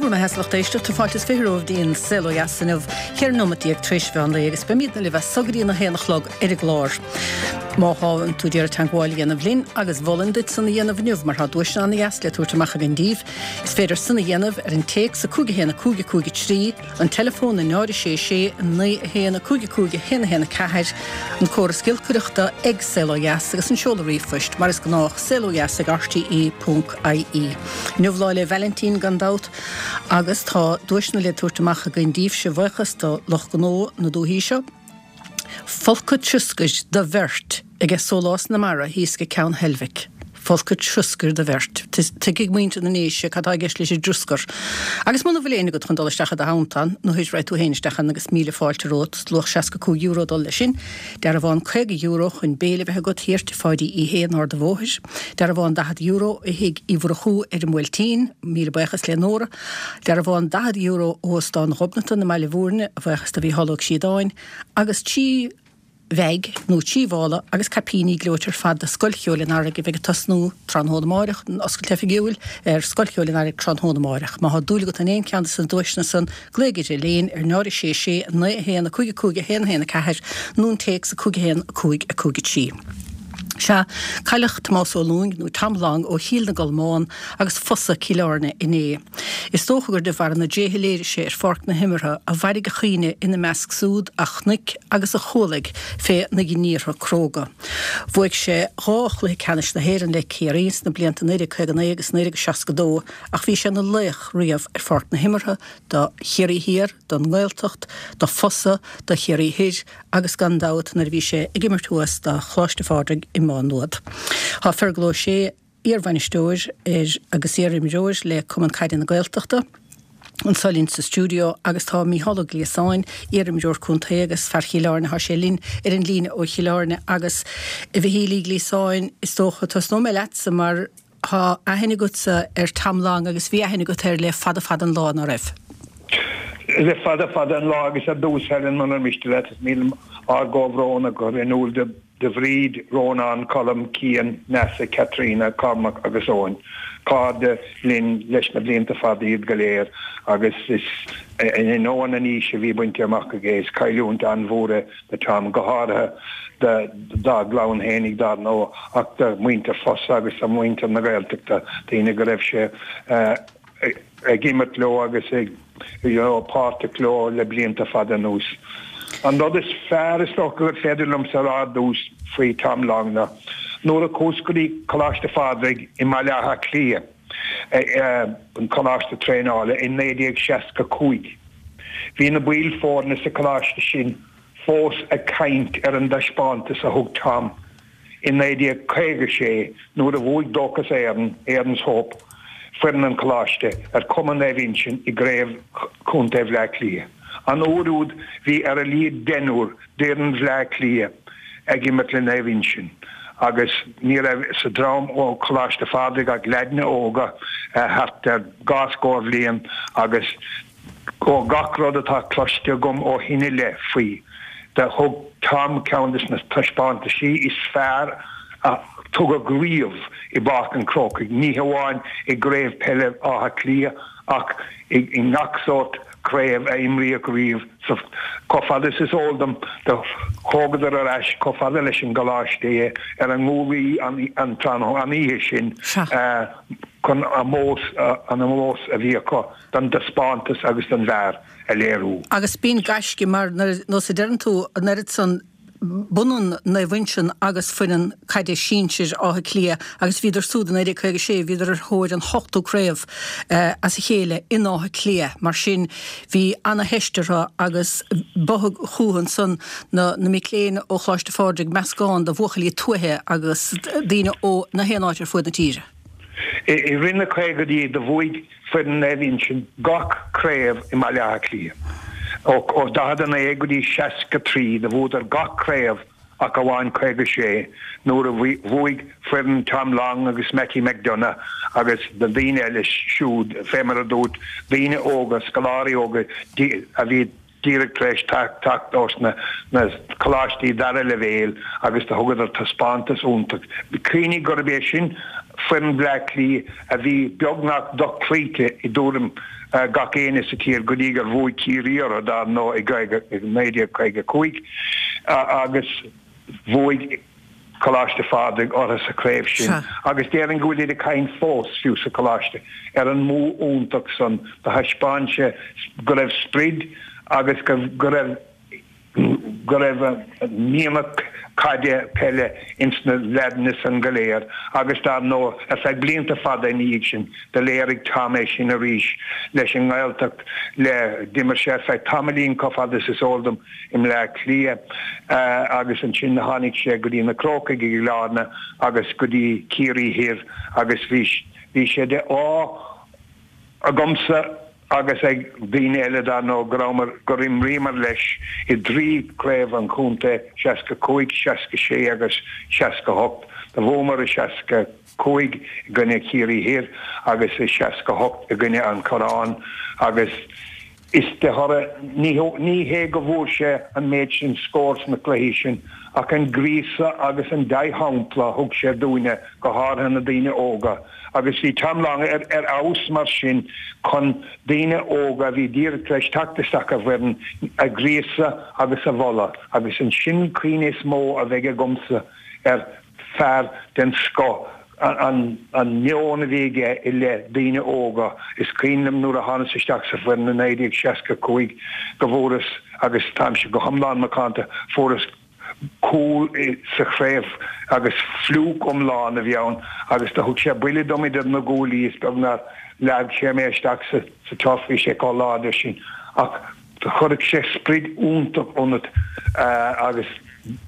Go raibh maith agat, a lucht éisteachta. Fáilte is 20 romhaibh dtí an Saol Ó Dheas inniu, 14 nóimeat tar éis mheán lae agus beimidne libh as so go dtí an 1 a chlog ar an gclár. Má tá tú ag iarraidh teagmháil a dhéanamh linn, agus mholfainn duit san a dhéanamh inniu mar tá duaiseanna ana-dheas le tabhairt amach againn daoibh, is féidir san a dhéanamh ar an téacs 5 1 5 5 3, an teileafón 0 6 6 9 1 5 5 1 1 4, an córas giolcaireachta ag Saol Ó Dheas agus an seoladh ríomhphoist, mar is gnách, saolodheas ag rte ponc ie. Inniu Lá 'le Vailintín gan dabht agus tá duaiseanna le tabhairt amach againn daoibhse, bhuíochas do lucht gnó na dúichí seo. Folcadh troscair do bheirt aige Sólás na Mara thíos ag Ceann Heilbhic. Folcadh troscair do bheirt. Tuigfidh muintir na nDéise cad tá i gceist leis an dtroscar. Agus muna bhfuil éinne agat chun dul isteach i do theannta ann, nó raghaidh tú féin isteach ann agus míle fáilte romhat, luach €65 ag dul leis sin. Dearbhán €50 chun béile a bheith agat thiar tigh Pháidí Uí Shé in Ard an Bhóthair. Dearbhán €40 ó thigh Uí Mhurchú ar an mBuailtín. Míle buíochas le Nóra. Dearbhán €40 ó Óstán Ghobnatan i mBaile Bhúirne, a bhuíochas do Mhícheál Ó Críodáin, agus 3 bheaig nó 3 mhála agus caipíní gleoite ar fad do Scoil Cheoil an Earraigh a bheidh ag tosnú tráthnóna amáireach, an oscailt oifigiúil ar Scoil Cheoil an Earraigh tráthnóna amáireach. Má thá dúil agat in aon cheann de na duaiseanna san, glaoigh ar Elaine ar 0 6 6 9 1 5 5 1 1 4 nó an téacs 5 1 5 5 3. Sea, cailleadh Tomás Ó Lúing, nó Tom Long, ó Chill na gColmán agus Fosa, Cill Airne, inné. Is dócha gur de bharr na dtréithe a léirigh sé ar pháirc na himeartha a mhairfidh a chuimhne ina measc súd a chonaic agus a chualaigh fé na ghníomhartha cróga. Bhuaigh sé dhá chluiche ceannais na hÉireann le Ciarraí sna blianta 1959 agus 1962 ach bhí sé ina laoch riamh ar pháirc na himeartha do Chiarraí Thiar, don nGaeltacht, do Fosa, do Chiarraí Thoir agus gan dabht nuair a bhí sé ag imirt thuas do Choláiste Phádraig i Má Nuad. Tá Fergal Ó Sé, iarbhainisteoir ar agus iarimreoir le Cumann Caide na Gaeltachta, anseo linn sa stiúideo agus tá Mícheál Ó Gliasáin, iarimreoir contae agus fear Chill Airne, tá sé linn ar an líne ó Chill Airne agus a Mhichíl Uí Ghliasáin, is dócha, tosnóidh mé leatsa mar Tá aithne agatsa ar Tom Long agus bhí aithne agat air le fada fada an lá, ná raibh? Le fada fada an lá agus ar dtús, Helen, munar miste leat, is mian liom ár gcomhbhrón a chur in iúl do Bhríd, Rónán, Colm, Cian, Neasa, Caitríona, Cormac agus Eoin. Cairde linn leis na blianta fada iad go léir agus is in ainneoin an aois a bhí bainte amach aige, is cailliúint an-mhór é do Tom, go háirithe dá gclann fhéinig dar ndóigh, ach do mhuintir Fosa agus do mhuintir na Gaeltachta, daoine go raibh sé ag imirt leo agus ag you know páirteach leo le blianta fada anuas. An rud is fearr is dócha gur féidir liomsa a rá ar dtús faoi Tom Long ná nuair a chuas go dtí Coláiste Phádraig i mBaile Átha Cliath, an coláiste traenála, i 1965, Bhí na baill foirne sa choláiste sin fós ag caint ar an dtaispeántas a thug Tom i 1956 nuair a bhuaigh Dóchas Éireann, Erin's Hope, foireann an choláiste, ar Chumann Naomh Uinseann i gCraobh Chontae Bhleá Cliath. An uair úd bhí ar a laghad deichniúr d'fhoireann Bhleá Cliath ag imirt le Naomh Uinseann agus ní raibh sa dream ó Choláiste Phádraig ach leaideanna óga thart ar dhá scór bhliain agus ó gach rud atá cloiste agam ó shin i leith faoi, do thug Tom ceann de na taispeántaisí is fearr a tugadh riamh i bPáirc an Chrócaigh, ní hamháin i gCraobh Peile Átha Cliath ach i ngach sórt craobh a imríodh riamh sa Chomh fada is is eol dom, do thógadar ar ais chomh fada leis an gcoláiste é ar a nguaillí an tráthnóna, an oíche sin, chun ómós, an ómós a bhí acu don dtaispeántas agus don bhfear a léiriú. Agus b'in gaisce mar, nós a deireann tú, an oiread san b'ionann Naomh Uinseann agus foireann caide sinsir Átha Cliath agus bhíodar súd i 1956, bhíodar ar thóir an hochtú craobh as a chéile in Áth Cliath. Mar sin bhí ana-theist orthu agus ba chucu ansan na mic léinn ó Choláiste Phádraig, meascán de bhuachaillí tuaithe agus daoine ó na haon áit ar fuaid na tíre. I rith na caogaidí do bhuaigh foireann Naomh Uinseann gach craobh i mBaile Átha Cliath. Ó 49 go dtí 63 do bhuadar gach craobh ach amháin 56 nuair a bhuaigh foireann Tom Long agus Mattie McDonagh agus na daoine eile siúd, fé mar a dúirt, daoine óga, scoláirí óga a bhí díreach tar éis teacht ós na coláistí dara leibhéal agus do thugadar taispeántas iontach. Cuimhnigh gurb é sin foireann Bhleá Cliath a bhí beagnach dochloíte i dtuairim. gach éinne sa tír go dtí gur bhuaigh Ciarraí orthu dar ndóigh i 1955 agus bhuaigh Coláiste Phádraig orthu sa chraobh sin agus déarfainn go bhfuilid ag caint fós, fiú sa choláiste, ar an mbua iontach san. Do thaispeáin sé go raibh sprid agus go raibh go raibh mianach caide, peile ins na leaideanna san go léir agus dar ndóigh ar feadh blianta fada ina dhiaidh sin do léirigh Tom é sin arís leis an nGaeltacht le d'imir sé ar feadh tamaillín chomh fada is is eol dom i mBleá Cliath agus ansin tháinig sé go dtí na Crócaigh i gCill Airne agus go dtí Ciarraí Thoir agus bhí bhí sé de ádh agamsa agus ag daoine eile dar ndóigh, go rabhamar, gur imríomar leis i dtrí chraobh an chontae, 65, 66 agus 68. Do bhuamar i 65 i gcoinne Chiarraí Thoir agus i 68 i gcoinne an Chorráin agus is de thoradh, ní, ní hé go bhfuair sé an méid sin scór sna cluichí sin ach an gríosadh agus an dea-shampla a thug sé dúinne, go háirithe na daoine óga. Agus bhí Tom Long ar fheabhas mar sin chun daoine óga a bhí díreach tar éis teacht isteach i bhfoireann a ghríosadh agus a mholadh agus ansin cuimhne is mó a bheidh agamsa ar fear den scoth, an meon a bhí aige i leith daoine óga. Is cuimhin liom nuair a thánas isteach sa bhfoireann i 1965 go bhfuaireas, agus táimse go hiomlán macánta, fuaireas, cúl sa chraobh agus fliúc iomlán a bhí ann agus do thug sé buille dom idir na guaillí is beag nár leag sé mé isteach sa turf, bhí sé chomh láidir sin ach do chuirfeadh sé sprid iontach ionat agus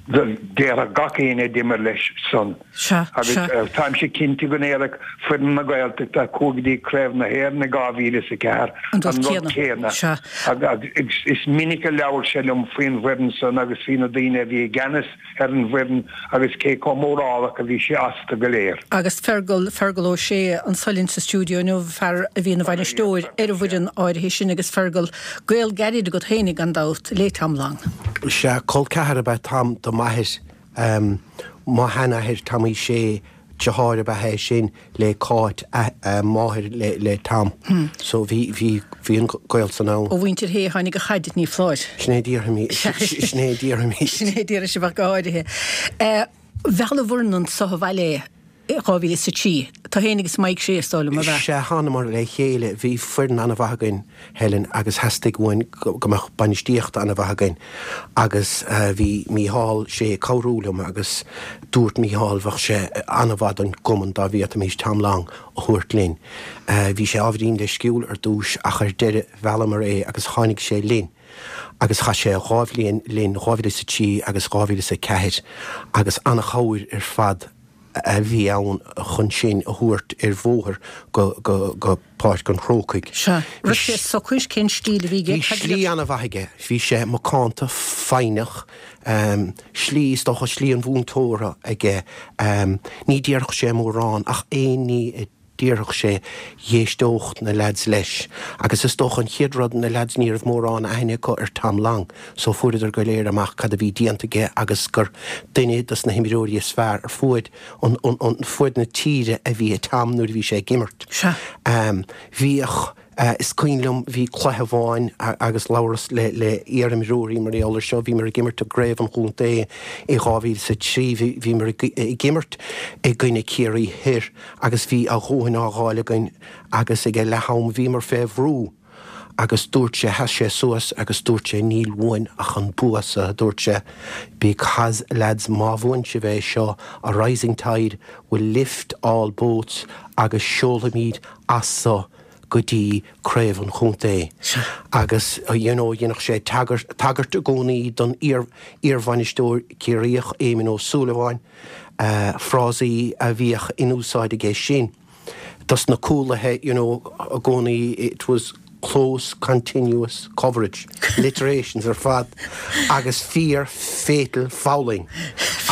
déarfadh gach éinne a d'imir leis san. Sea, Agus sea. táimse cinnte go ndéarfadh foireann na Gaeltachta a chuaigh go dtí Craobh na hÉireann i 2004 An rud an rud céanna. céanna. Sea. Agus is minic a labhair sé liom faoin bhfoireann san agus faoi na daoine a bhí i gceannas ar an bhfoireann agus cé chomh mórálach a bhí sé astu go léir. Agus Fergal, Fergal Ó Sé anso linn sa stiúideo inniu, fear a bhí ina bhainisteoir ar an bhfoireann áirithe sin agus Fergal, gaol gairid agat féinig gan dabht le Tom Long. Sea, col ceathar ab ea Tom do m'athair. Mo sheanathair Tommy Shea, deartháir ab ea é sin le Cáit, máthair le Tom. So bhí, bhí, bhí an gaol san ann. Ó mhuintir Shé a tháinig an chaid, ní foláir. Sin é a déarfaimid, sin é a déarfaimid. Sin é a déarfaidh sibh ach go háirithe. Mheall an bhfoireann anso abhaile é i 2003. Tú féin agus Mike Shea is dóigh liom, ab ea? Sea, thánamar le chéile. Bhí foireann an-mhaith againn. Helen, agus theastaigh uainn go mbeadh bainistíocht an-mhaith againn agus bhí Mícheál Sé ag cabhrú liom agus dúirt Mícheál bheadh sé an-mhaith don gcumann dá bhféadfaimis Tom Long a thabhairt linn. Bhí sé ábhairín leisciúil ar dtús ach ar deireadh mheallamar é agus tháinig sé linn agus chaith sé dhá bhliain linn, 2003 agus 2004 agus an-chabhair ar fad a bhí ann chun sinn a thabhairt ar bhóthar go Páirc an Chrócaigh. Sea. Raibh sé socair? Cén stíl a bhí aige? Bhí slí an-mhaith aige. Bhí sé macánta, foighneach. Slí, is dócha, slí an mhúinteora aige. Ní déarfadh sé mórán ach aon ní a déarfadh sé, dh'éisteodh na leaids leis. Agus is dócha an chéad rud, na leaids ní raibh mórán aithne acu ar Tom Long so fuaireadar go léir amach cad a bhí déanta aige agus gur duine dos na himreoirí is fearr ar fuaid an fuaid na tíre a bhí i Tom nuair a bhí sé ag imirt. Sea. Bhíodh, is cuimhin liom, bhí cluiche amháin agus labhras le le iar-imreoirí mar gheall ar seo, bhíomar ag imirt i gcraobh an chontae i 2003, bhíomar ag imirt i gcoinne Ciarraí Thoir agus bhí a dhóthain á dh'fháil againn agus ag leath-am bhíomar fé bhrú agus dúirt sé, sheas sé suas agus dúirt sé níl uainn ach an bua so, a dúirt sé, because lads má bhuann sibh é seo, a rising tide will lift all boats agus seolfaimid as so go dtí craobh an chontae. Agus you know dhéanfadh sé tagairt, tagairt i gcónaí don iar, iarbhainisteoir Ciarraíoch Éamon Ó Súilleabháin, frásaí a bhíodh in úsáid aige sin dos na cúlaithe, you know, i gcónaí it was close continuous coverage, alliterations ar fad agus fear fatal fouling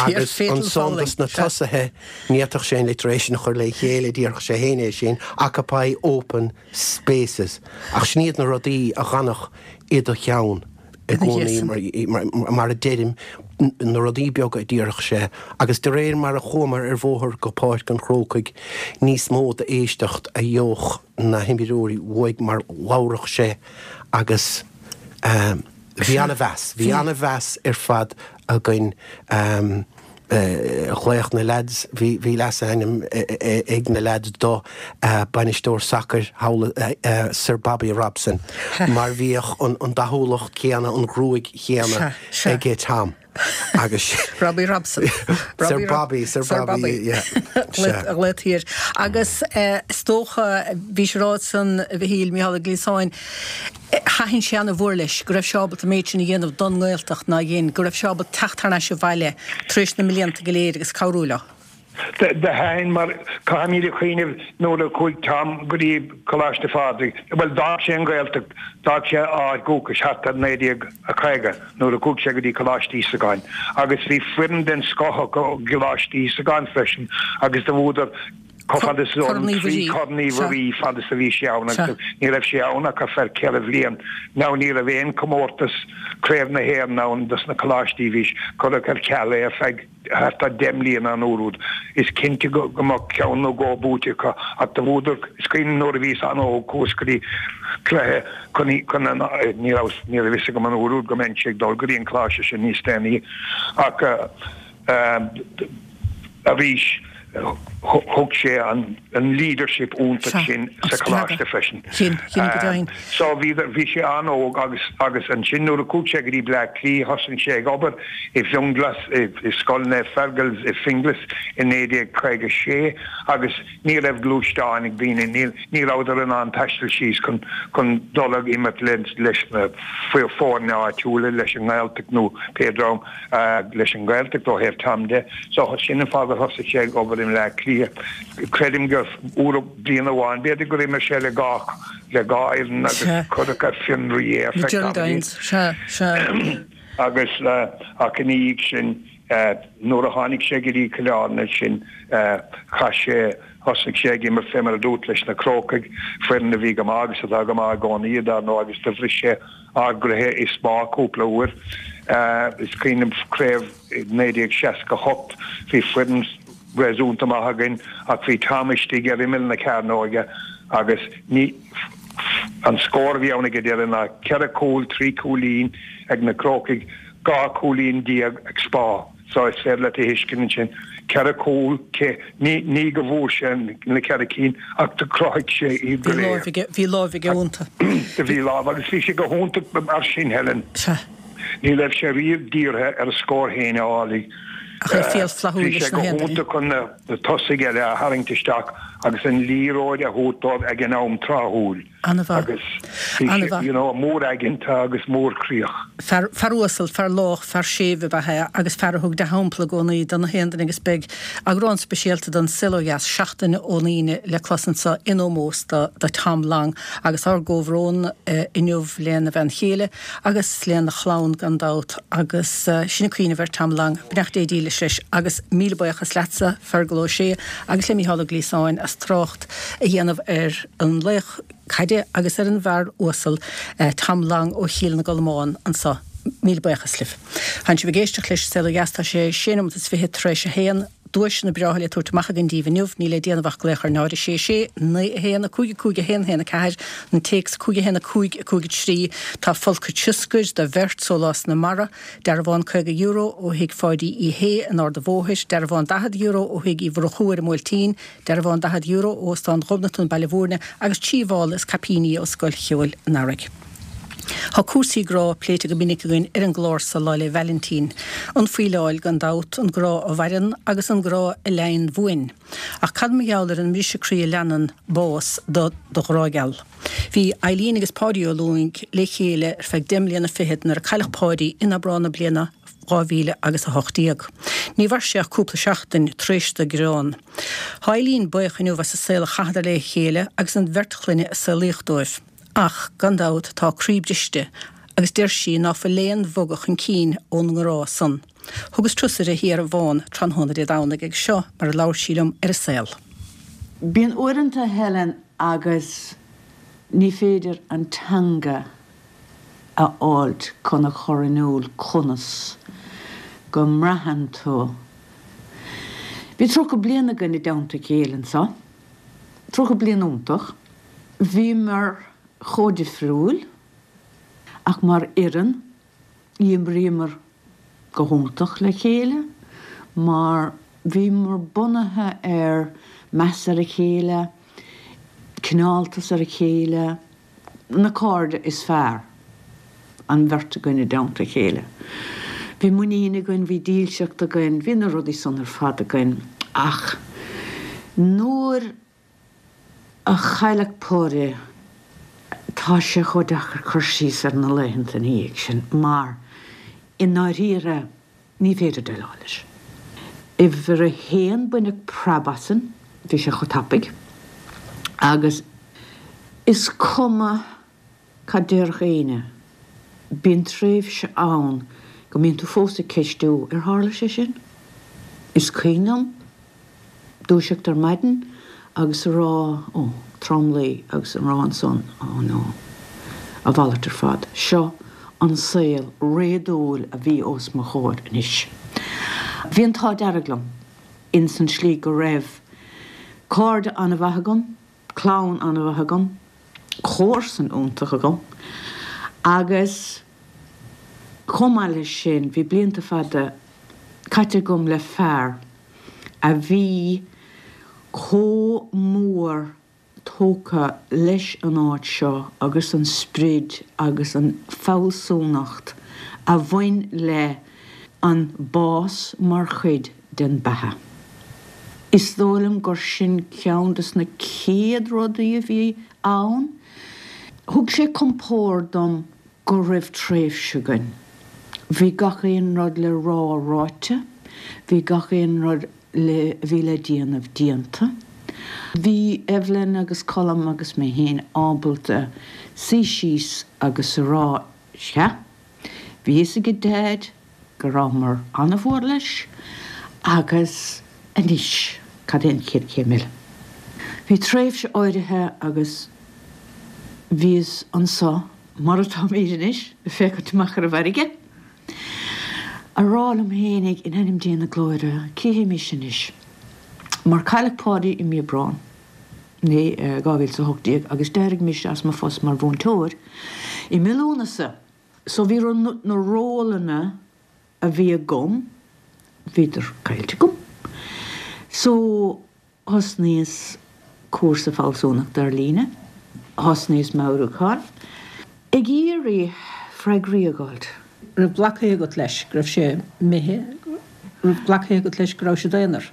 agus ansan dos na tosaithe ní fhéadfadh sé an alliteration a chur le chéile, déarfadh sé féin é sin, occupy open spaces ach sin iad na rudaí a dh'fhanfadh i do cheann. i gcónaí, mar a deirim. Na rudaí beaga a déarfadh sé agus de réir mar a chuamar ar bhóthar go Páirc an Chrócaigh níos mó d'éisteacht a gheobhadh na himreoirí uaidh mar labhradh sé agus bhí an-mheas, bhí an-mheas ar fad againn. Ghlaodh na leaids, bhí bhí leasainm ag na leaids do, bainisteoir sacair thall, Sir Bobby Robson, mar bhíodh an dathúlacht chéanna, an ghruaig chéanna aige Tom agus. Robbie Robson. Sir Bobby, Sir Bobby, yeah. A ghlaotaí air. Agus is dócha, bhís ag rá ansan, a Mhichíl, Micheál Ó Gliasáin, Thaitin sé ana-mhór leis go raibh sé ábalta an méid sin a dhéanamh don nGaeltacht ná dhein, go raibh sé ábalta teacht thar n-ais abhaile tar éis na mblianta go léir agus cabhrú leo. Do thaitin mar caithfimid a chuimhneamh nuair a chuaigh Tom go dtí Coláiste Phádraig, bhuel d'fhág sé an Ghaeltacht, d'fhág sé a áit dhúchais thart ar 1950 nuair a chuaigh sé go dtí Coláiste Íosagáin agus bhí foireann den scoth acu i gColáiste Íosagáin freisin agus do bhuadar Chomh fada is Corn Uí Mhuirí. Corn Uí Mhuirí fad is a bhí sé ann agus ní raibh sé ann ach ar feadh 4 bhliain. Now ní raibh aon comórtas Craobh na hÉireann ann dos na coláistí bhí cuireadh ar ceal é ar feadh thart ar 10 mbliana an uair úd. Is cinnte go mbeadh ceann nó dhó buaite acu ach do bhuadar is cuimhin nuair a bhíos an-óg chuas go dtí cluiche chun chun an ní raibh ní raibh fhios agam an uair úd go mbeinnse ag dul go dtí an coláiste sin níos déanaí ach Arís, thug sé an leadership iontach sin sa choláiste freisin. So bhí bhí sé an-óg agus agus ansin nuair a chuaigh sé go dtí Bleá Cliath thosaigh sé ag obair i bhFionnghlas i Scoil Naomh Fergal i Finglas i 1956 agus ní raibh gluaisteáin ag daoine, ní ní rabhadar in ann taisteal síos chun chun dul ag imirt leis na foirne áitiúla, leis an nGaeltacht nó pé dream. leis an nGaeltacht ó thaobh Tom de. So sin an fáth gur thosaigh sé ag obair i mBleá Cliath. Creidim gur uair bliain amháin, b'fhéidir gur imir sé le dhá le dhá fhoireann agus cuireadh ar fionraí é ar feadh tamaillín. Sea, sea. Agus ach ina dhiaidh sin nuair a tháinig sé go dtí Cill Airne ansin chaith sé thosaigh sé ag imirt fé mar a dúirt leis na Crócaigh, foireann a bhí go maith agus atá go maith i gcónaí dar ndóigh agus do bhris sé ár gcroíthe i Spá cúpla uair. Is cuimhin liom craobh 1968, bhí foireann réasúnta maith againn ach bhí Tom istigh ar imeall na cearnóige agus ní an scór a bhí ann ag an deireadh ná 4 chúl, 3 chúilín ag na Crócaigh, 12 cúilín ag Spá. So is féidir leat a thuiscint ansin, 4 chúl, cé, ní, ní go bhfuair sé na 4 cinn ach do chruthaigh sé iad go léir. Bhí láimh aige, bhí láimh aige iontu. Do bhí lámh agus bhí sé go hiontach mar sin, Helen. Sea. Ní raibh sé riamh dírithe ar a scór féin a fháil. Ach é fial flaithiúil leis na haon duine. Bhí sé go hiontach chun na tosaigh eile a tharraingt isteach agus an liathróid a thabhairt dóibh ag an am tráthúil. An-mhaith. Agus bhí sé, you know, mór-aigeanta agus mórchroíoch. Fear, fear uasal, fear lách, fear séimh ab ea é agus fear a thug dea-shampla i gcónaí do na haon duine agus beidh eagrán speisialta den Saol Ó Dheas seachtain ón Aoine le clos anseo in ómós do, do Tom Long agus ár gcomhbhrón inniu lena bhean chéile agus lena chlann gan dabht agus sinn ag cuimhneamh ar Tom Long. Beannacht Dé dílis leis agus míle buíochas leatsa, Fergal Ó Sé agus le Mícheál Ó Gliasáin as trácht a dhéanamh ar an laoch caide agus ar an bhfear uasal Tom Long ó Chill na gColmán anso. Míle buíochas libh. Tánn sibh ag éisteacht leis Saol Ó Dheas. Tá sé sé nóimeat is fiche tar éis a haon. Duaiseanna breátha le tabhairt amach againn daoibh inniu. Níl le déanamh ach glaoch ar 0 6 6 9 1 5 5 1 1 4, an téacs 5 1 5 5 3. Tá folcadh tsioscair do bheirt, sólás na mara, dearbhán €50 ó thigh Pháidí Uí Shé in Ard a' Bhóthair, dearbhán €40 ó thigh Uí Mhurchú ar an mBuailtín, Dearbhán €40 ó Óstán Ghobnatan, Baile Bhúirne, agus 3 mhála is caipíní ó Scoil Cheoil an Earraigh. Tá cúrsaí grá pléite go minic againn ar an gclár so Lá 'le Vailintín. An fuíleáil, gan dabht, an grá a mhaireann agus an grá a leighinn bhuain. Ach cad mar gheall ar an mbriseadh croí a leanann bás do do ghrá geal? Bhí Eileen agus Páidí Ó Lúing le chéile ar feadh deich mbliana fichead nuair a cailleadh Páidí in Aibreán na bliana 2000 agus 18. Ní mhair sé ach cúpla seachtain tar éis do greann. Tá Eileen buíoch inniu as an saol a chaitheadar le chéile agus an bheirt chlainne a saolaíodh dóibh. Ach, gan dabht, tá a croí briste agus deir sí ná fuil aon bhogadh chun cinn ón ngrá san. Thugas turas uirthi thiar i bhFán tráthnóna Dé Domhnaigh agus seo mar a labhair sí liom ar an saol. Bíonn uaireanta, Helen, agus ní féidir an teanga a fháilt chun a chur in iúl conas. go mbraitheann tú. Bhí 30 bliain againn i dteannta a chéile anseo, 30 bliain iontach. Bhíomar chomh difriúil ach mar fhoireann D'imríomar go hiontach le chéile mar bhíomar bunaithe ar meas ar a chéile, cineáltas ar a chéile, na cairde is fearr, an bheirt againn i dteannta a chéile. Bhí muinín againn, bhí dílseacht againn, bhí na rudaí san ar fad againn ach nuair a chailleadh Páidí, tá sé chomh deacair cur síos ar na laethanta ina dhiaidh sin mar i ndáiríre ní féidir déileáil leis. Uimhir a haon, baineadh preab asainn, bhí sé chomh tapaidh agus is cuma cad déarfadh éinne, bíonn tréimhse ann go mbíonn tú fós ag ceistiú, ar tharla sé sin? Is cuimhin liom dúiseacht ar maidin agus a rá, ó, tromluí agus a rá ansan, oh no, a mhalairt ar fad, seo an saol réadúil a bhí os mo chomhair anois. Bhí an t-ádh dearg liom ins an tslí go raibh cairde an-mhaith agam, clann an-mhaith agam, comharsan iontach agam agus chomh maith leis sin bhí blianta fada caite agam le fear a bhí chomh mór tógtha leis an áit seo agus an sprid agus an fealsúnacht a bhain le an bás mar chuid den beatha. Is dóigh liom gur sin ceann des na chéad rudaí a bhí ann. Thug sé compord dom go raibh tréimhse againn. Bhí gach aon rud le rá ráite, bhí gach aon rud le a bhí le déanamh déanta. Bhí Evelyn agus Colm agus mé féin ábalta suí síos agus a rá, sea, bhí fhios ag Daid go rabhamar an-mhór leis agus anois cad é an chéad chéim eile? Bhí tréimhse áirithe agus bhíos anso mar atáimid anois, ag féachaint amach ar an bhfarraige, a rá liom fhéinig, in ainm Dé na Glóire, cé hé mise anois? Mar cailleadh Páidí i mí Aibreán 2018 agus d'éirigh mise as mo phost mar mhúinteoir i mí Lúnasa. So bhí na rólanna a bhí agam, bhíodar caillte agam. So thosnaíos cúrsa fealsúnachta ar líne, thosnaíos meabhrúchán, ag iarraidh freagraí a fháilt. Raibh glactha agat leis go raibh sé imithe, raibh glactha agat leis go raibh siad aonar?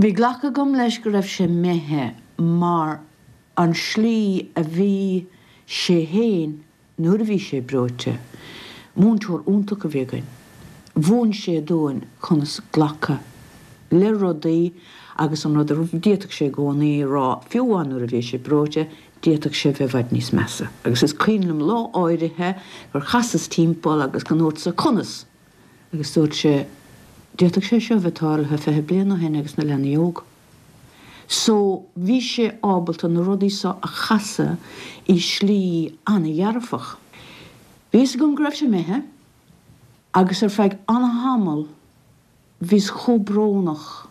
Bhí glactha agam leis go raibh sé imithe mar an slí a bhí sé fhéin Nuair a bhí sé breoite, múinteoir iontach a bhí againn. Mhúin sé dúinn conas glacadh le rudaí agus an rud a d'fhéadfadh sé i gcónaí a rá, fiú amháin nuair a bhí sé breoite, d'fhéadfadh sé bheith i bhfad níos measa. Agus is cuimhin liom lá áirithe gur chasas timpeall agus go ndúrtsa, 'Conas? Agus dúirt sé, 'D'fhéadfadh sé seo a bheith tarlaithe 20 bliain ó shin agus na leanaí óg. So, bhí sé ábalta na rudaí so a chasadh i slí an-dhearfach. Bhí fhios agam go raibh sé imithe agus ar feadh an-tamall bhíos chomh brónach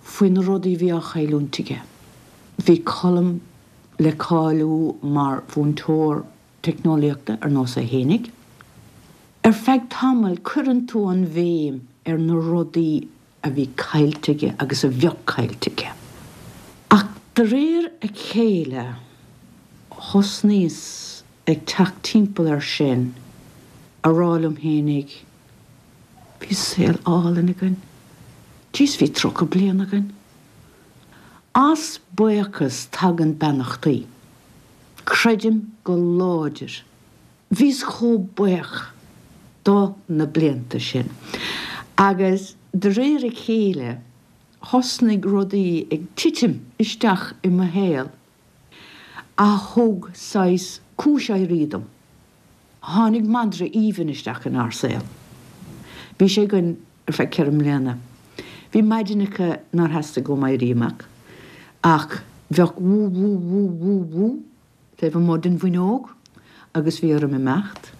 faoi na rudaí a bhí á chailliúint aige. Bhí Colm le cáiliú mar mhúinteoir teicneolaíochta ar nós é fhéinig. Ar feadh tamaill cuireann tú an bhéim ar na rudaí a bhí caillte aige agus a bheadh caillte aige. Ach de réir a chéile thosnaíos ag teacht timpeall air sin, a rá liom fhéinig, bhí saol álainn againn, jeez bhí 30 bliain againn. As buíochas tagann beannachtaí. Creidim go láidir Bhíos chomh buíoch do na blianta sin agus de réir a chéile thosnaigh rudaí ag titim isteach i mo shaol a thug saghas cúis éirí dom. Tháinig madra aoibhinn isteach inár saol. Bhí sé againn ar feadh 4 mbliana. Bhí maidineacha nár theastaigh uaim éirí amach ach bheadh wú wú wú wú wú taobh amuigh den bhfuinneog agus bhí orm imeacht.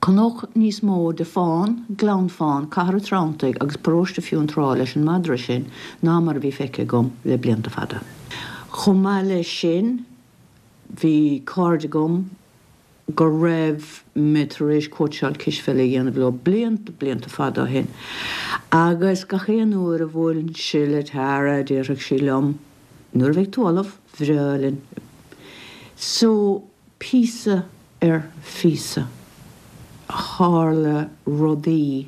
Chonac níos mó de Fán, Gleann Fán, Cathair an Treanntaigh agus Paróiste Fionntrá leis an madra sin ná mar a bhí feicthe agam le blianta fada. Chomh maith leis sin, bhí cairde agam go raibh mé tar éis cóitseáil cispheile a dhéanamh leo blianta, blianta fada ó shin agus gach aon uair a bhuailinnse le Tara déarfadh sí liom, nuair a bheidh tú ullamh, bhreá linn. So, píosa ar phíosa, tharla rudaí,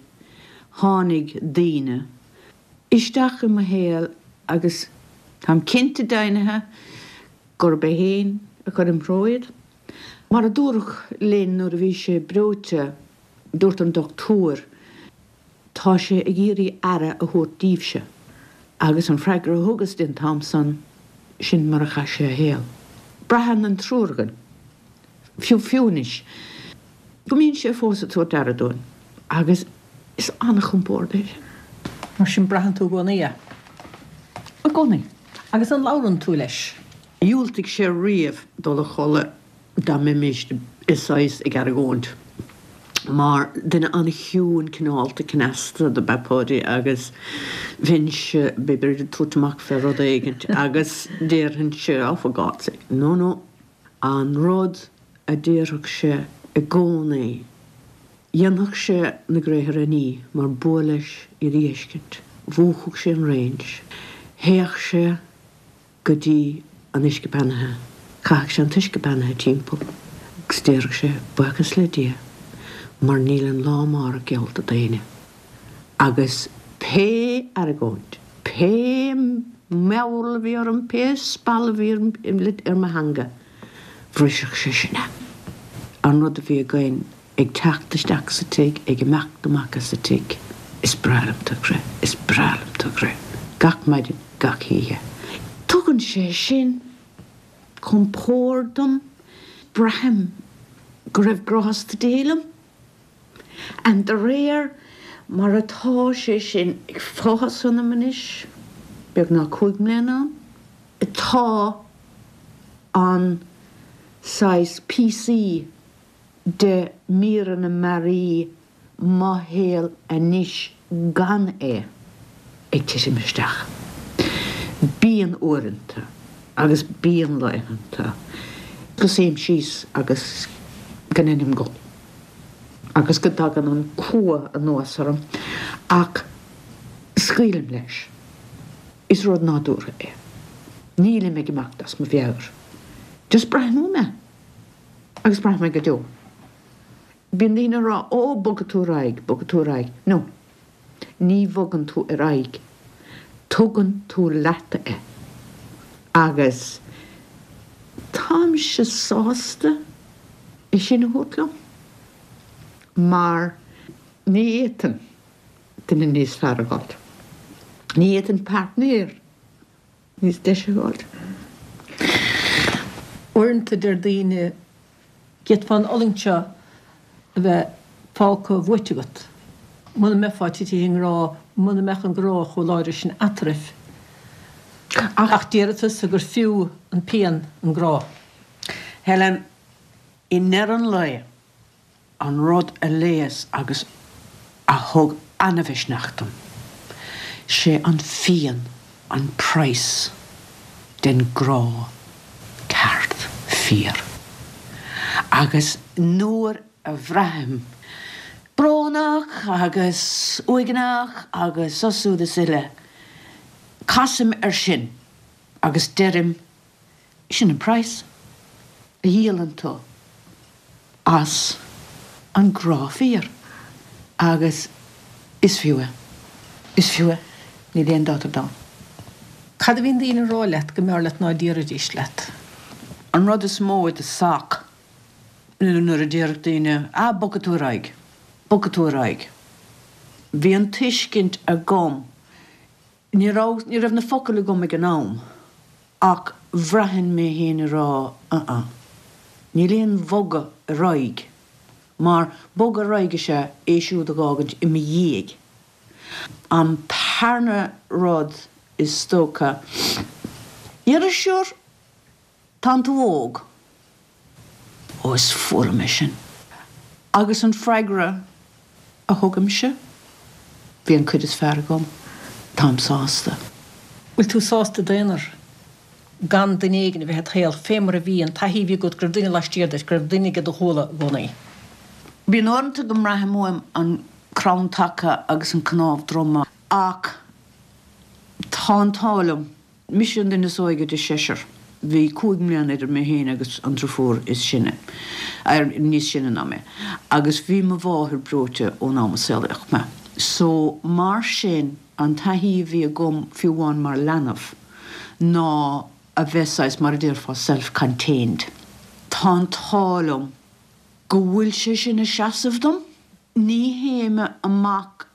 tháinig daoine isteach i mo shaol agus táim cinnte deimhnithe gurb é féin a chuir im threo iad. Mar a dúradh linn nuair a bhí sé breoite, dúirt an dochtúir, Tá sé ag iarraidh aire a thabhairt daoibhse. Agus an freagra a thugas di an t-am san, sin mar a chaith sé a shaol. Braitheann an triúr againn, fiú fiú anois, go mbíonn sé fós ag tabhairt aire dúinn agus is an-chompord é sin. Mar sin braitheann tú i gcónaí é? I gcónaí. Agus an labhrann tú leis? Dhiúltaigh sé riamh dul a chodladh dá mbeimis i saghas ag argóint, mar duine an-chiúin cineálta cneasta do b'ea Páidí agus bheinnse b'fhéidir ag tabhairt amach fé rud éigint agus déarfainnse oh for God's sake, no no, an rud a déarfadh sé i gcónaí, dhéanfadh sé na gréithre a ní mar b'fhuath leis iad a fheiscint, mhúchadh sé an range, théadh sé go dtí an uisce beannaithe. Chaitheadh sé an t-uisce beannaithe timpeall agus déarfadh sé, Buíochas le Dia mar níl an lá amárach geallta d'éinne. Agus pé argóint, pé meabhail a bhí orm, pé spall a bhí ar mo theanga, bhrisfeadh sé sin é. An rud a bhí againn ag teacht isteach sa tigh, ag imeacht amach as an tigh. Is breá liom do chrith, is breá liom do chrith. Gach maidin, gach oíche. Tugann sé sin compord dom, braithim go raibh grásta Dé liom. And de réir mar atá sé sin ag fás ionam anois, beagnach 5 mbliana ann, tá an saghas píosaí de míreanna mearaí mo shaol anois gan é ag titim isteach. Bíonn uaireanta agus bíonn laethanta go suím síos agus go ndeinim gol agus go dtagann an cumha anuas orm ach scaoilim leis. Is rud nádúrtha é. Nílim ag imeacht as mo mheabhair. Just braithim uaim é. Agus braithim é go deo. Bíonn daoine ag rá, Ó, bogfaidh tú ar aghaidh, bogfaidh tú ar aghaidh. No. Ní bhogann tú ar aghaidh. Tugann tú leat é. Agus táimse sásta é sin a thabhairt liom mar ní fhéadfainn duine níos fearr a fháilt. Ní fhéadfainn páirtnéir níos deise a fháilt. Uaireanta deir daoine, d'fhéadfá an fhulaingt seo a bheith fágtha uait agat muna mbeifeá titithe i ngrá, muna mbeadh an grá chomh láidir sin eatarthu. Ach déarfaidh tusa gur fiú an pian an grá. Helen, i ndeireadh an lae, an rud a leigheas agus a thug ana-mhisneach dom, sé an phian an praghas den grá ceart fíor. Agus nuair a bhraithim brónach agus uaigneach agus so siúd is uile, casaim air sin agus deirim, Sin an praghas a dhíolann tú as an grá fíor agus is fiú é. Is fiú é, níl aon dabht ar domhan. Cad a bhíonn daoine a rá leat go mb'fhearr leat ná déarfaidís leat? An rud is mó i do sac nuair a déarfadh daoine, ah, bogfaidh tú ar aghaidh, bogfaidh tú ar aghaidh. Bhí an tuiscint agam Ní raibh, ní raibh na focail agam ag an am ach bhraithinn mé féin ag rá uh-uh, níl aon bhogadh ar aghaidh mar bogadh ar aghaidh is ea é siúd a dh'fhágaint i mo dhiaidh. An tarna rud is dócha, déarfadh sure tánn tú óg. Ó is fuath liom é sin. Agus an freagra a thugaimse, bhí an cuid is fearr agam, táim sásta. Bhfuil tú sásta i d'aonar, gan duine éigin a bheith id shaol, fé mar a bhí, an taithí a bhí agat go raibh duine laistiar duit, go raibh duine ag do ghuala i gcónaí? Bíonn uaireanta go mbraithim uaim an crann taca agus an cnámh droma ach tá an t-ádh liom. Mise an duine is óige de sheisear. Bhí 5 mbliana idir mé féin agus an driofúr is sine, níos sine ná mé, agus bhí mo mháthair breoite ón am a saolaíodh mé. So, mar sin, an taithí a bhí agam, fiú amháin mar leanbh, ná a bheith saghas, mar a déarfá, self-contained. Tá an t-ádh liom go bhfuil sé sin ag seasamh dom. Ní théim amach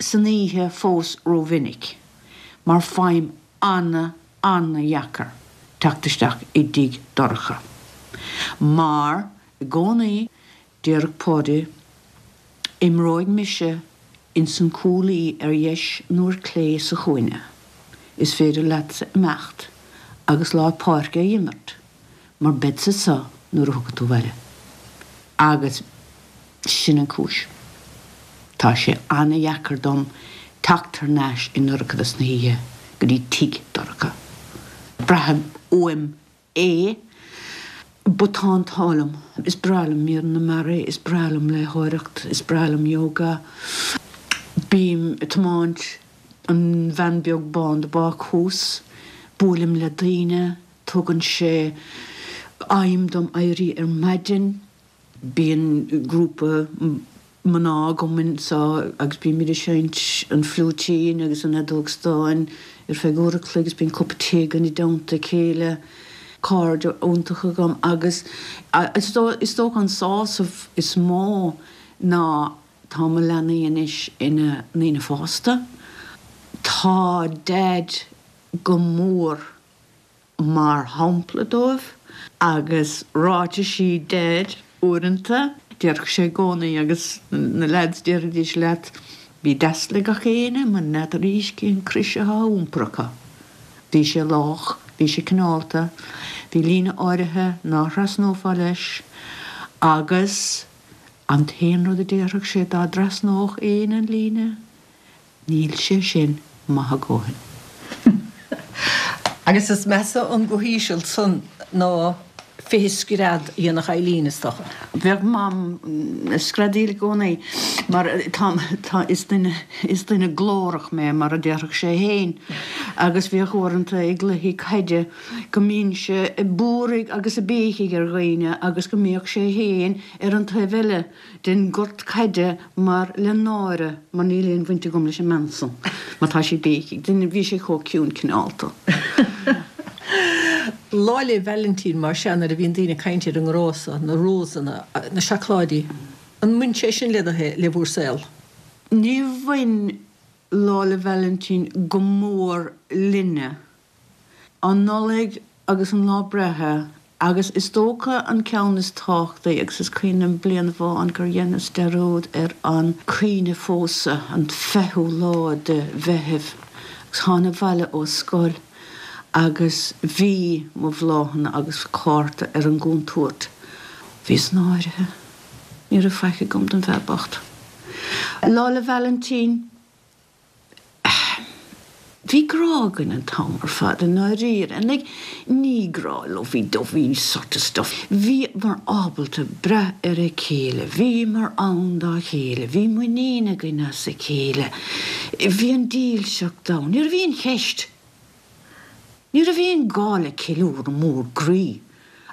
san oíche fós rómhinic mar faighim ana-ana-dheacair teacht isteach i dtigh dorcha mar i gcónaí déarfadh Páidí imreoidh mise ins an cúlaí ar dheis nó ar clé sa chúinne, is féidir leatsa imeacht agus lár páirce a imirt mar beadsa anso nuair a thiocfaidh tú abhaile. Agus sin an cúis. Tá sé ana-dheacair dom teacht thar n-ais i ndorchadas na hoíche go dtí tigh dorcha. Braithim uaim é but tá an t-ádh liom. Is breá liom míreanna mearaí, is breá liom léitheoireacht, is breá liom yoga. Bím ag tiomáint an veain beag bán de bácús, buailim le daoine, Tugann sé aidhm dom éirí ar maidin. Bíonn grúpa mná agam anseo agus bímid ag seinnt an fliúitín agus an fheadóg stáin ar feadh uair a chloig agus bíonn cupa tae againn i dteannta a chéile. Cairde iontacha agam agus is dócha an sásamh is mó ná tá mo leanaí anois ina ndaoine fásta. Tá Daid go mór mar shampla dóibh, agus ráitisí Daid uaireanta, déarfadh sé i gcónaí, agus na leaids déarfaidís leat, bí deas le gach éinne, mar n'fheadar arís cén crois atá á iompar acu. Bhí sé lách, bhí sé cineálta, bhí líne áirithe ná thrasnófá leis, agus an t-aon rud a déarfadh sé dá dtrasnódh éinne an líne, Níl sé sin maith a dhóthain. Agus is measa an guth íseal san ná 20 scread a dhéanfadh Eileen, is dócha. Bheadh Mam ag screadaíl i gcónaí mar tá, tá, is duine, is duine glórach mé mar a déarfadh sé fhéin agus bhíodh uaireanta i gcluichí caide go mbínnse ag búirigh agus ag béicigh ar dhaoine agus go mbíodh sé fhéin ar an taobh eile den gort caide mar le náire mar níl aon bhaint agam leis an mbean san má tá sí ag béicigh. Duine, bhí sé chomh ciúin cineálta. Lá 'le Vailintín mar sea nuair a bhíonn daoine ag caint ar an ngrá so, na rósanna, na seacláidí, an mbain sé sin le do shaol, le bhur saol? Níor bhain Lá 'le Vailintín go mór linne. An Nollaig agus an lá breithe agus is dócha an ceann is tábhachtaí agus is cuimhin liom bliain amháin gur dheineas dearúd ar an cuimhne phósadh, an fichiú lá de Mheitheamh agus thána abhaile ó scoil agus bhí mo bhláthanna agus cárta ar an gcúntúirt. Bhíos náirithe. Ní raibh faic agam don bhfear bocht. Lá 'le Vailintín. Bhí grá againn an t-am ar fad i ndáiríre and like ní grá lovey dovey sort of stuff. Bhíomar ábalta brath ar a chéile, bhíomar ann dá chéile, bhí muinín againn as a chéile, bhí an dílseacht ann, ní raibh aon cheist. Ní raibh aon gá le ceiliúradh mór groí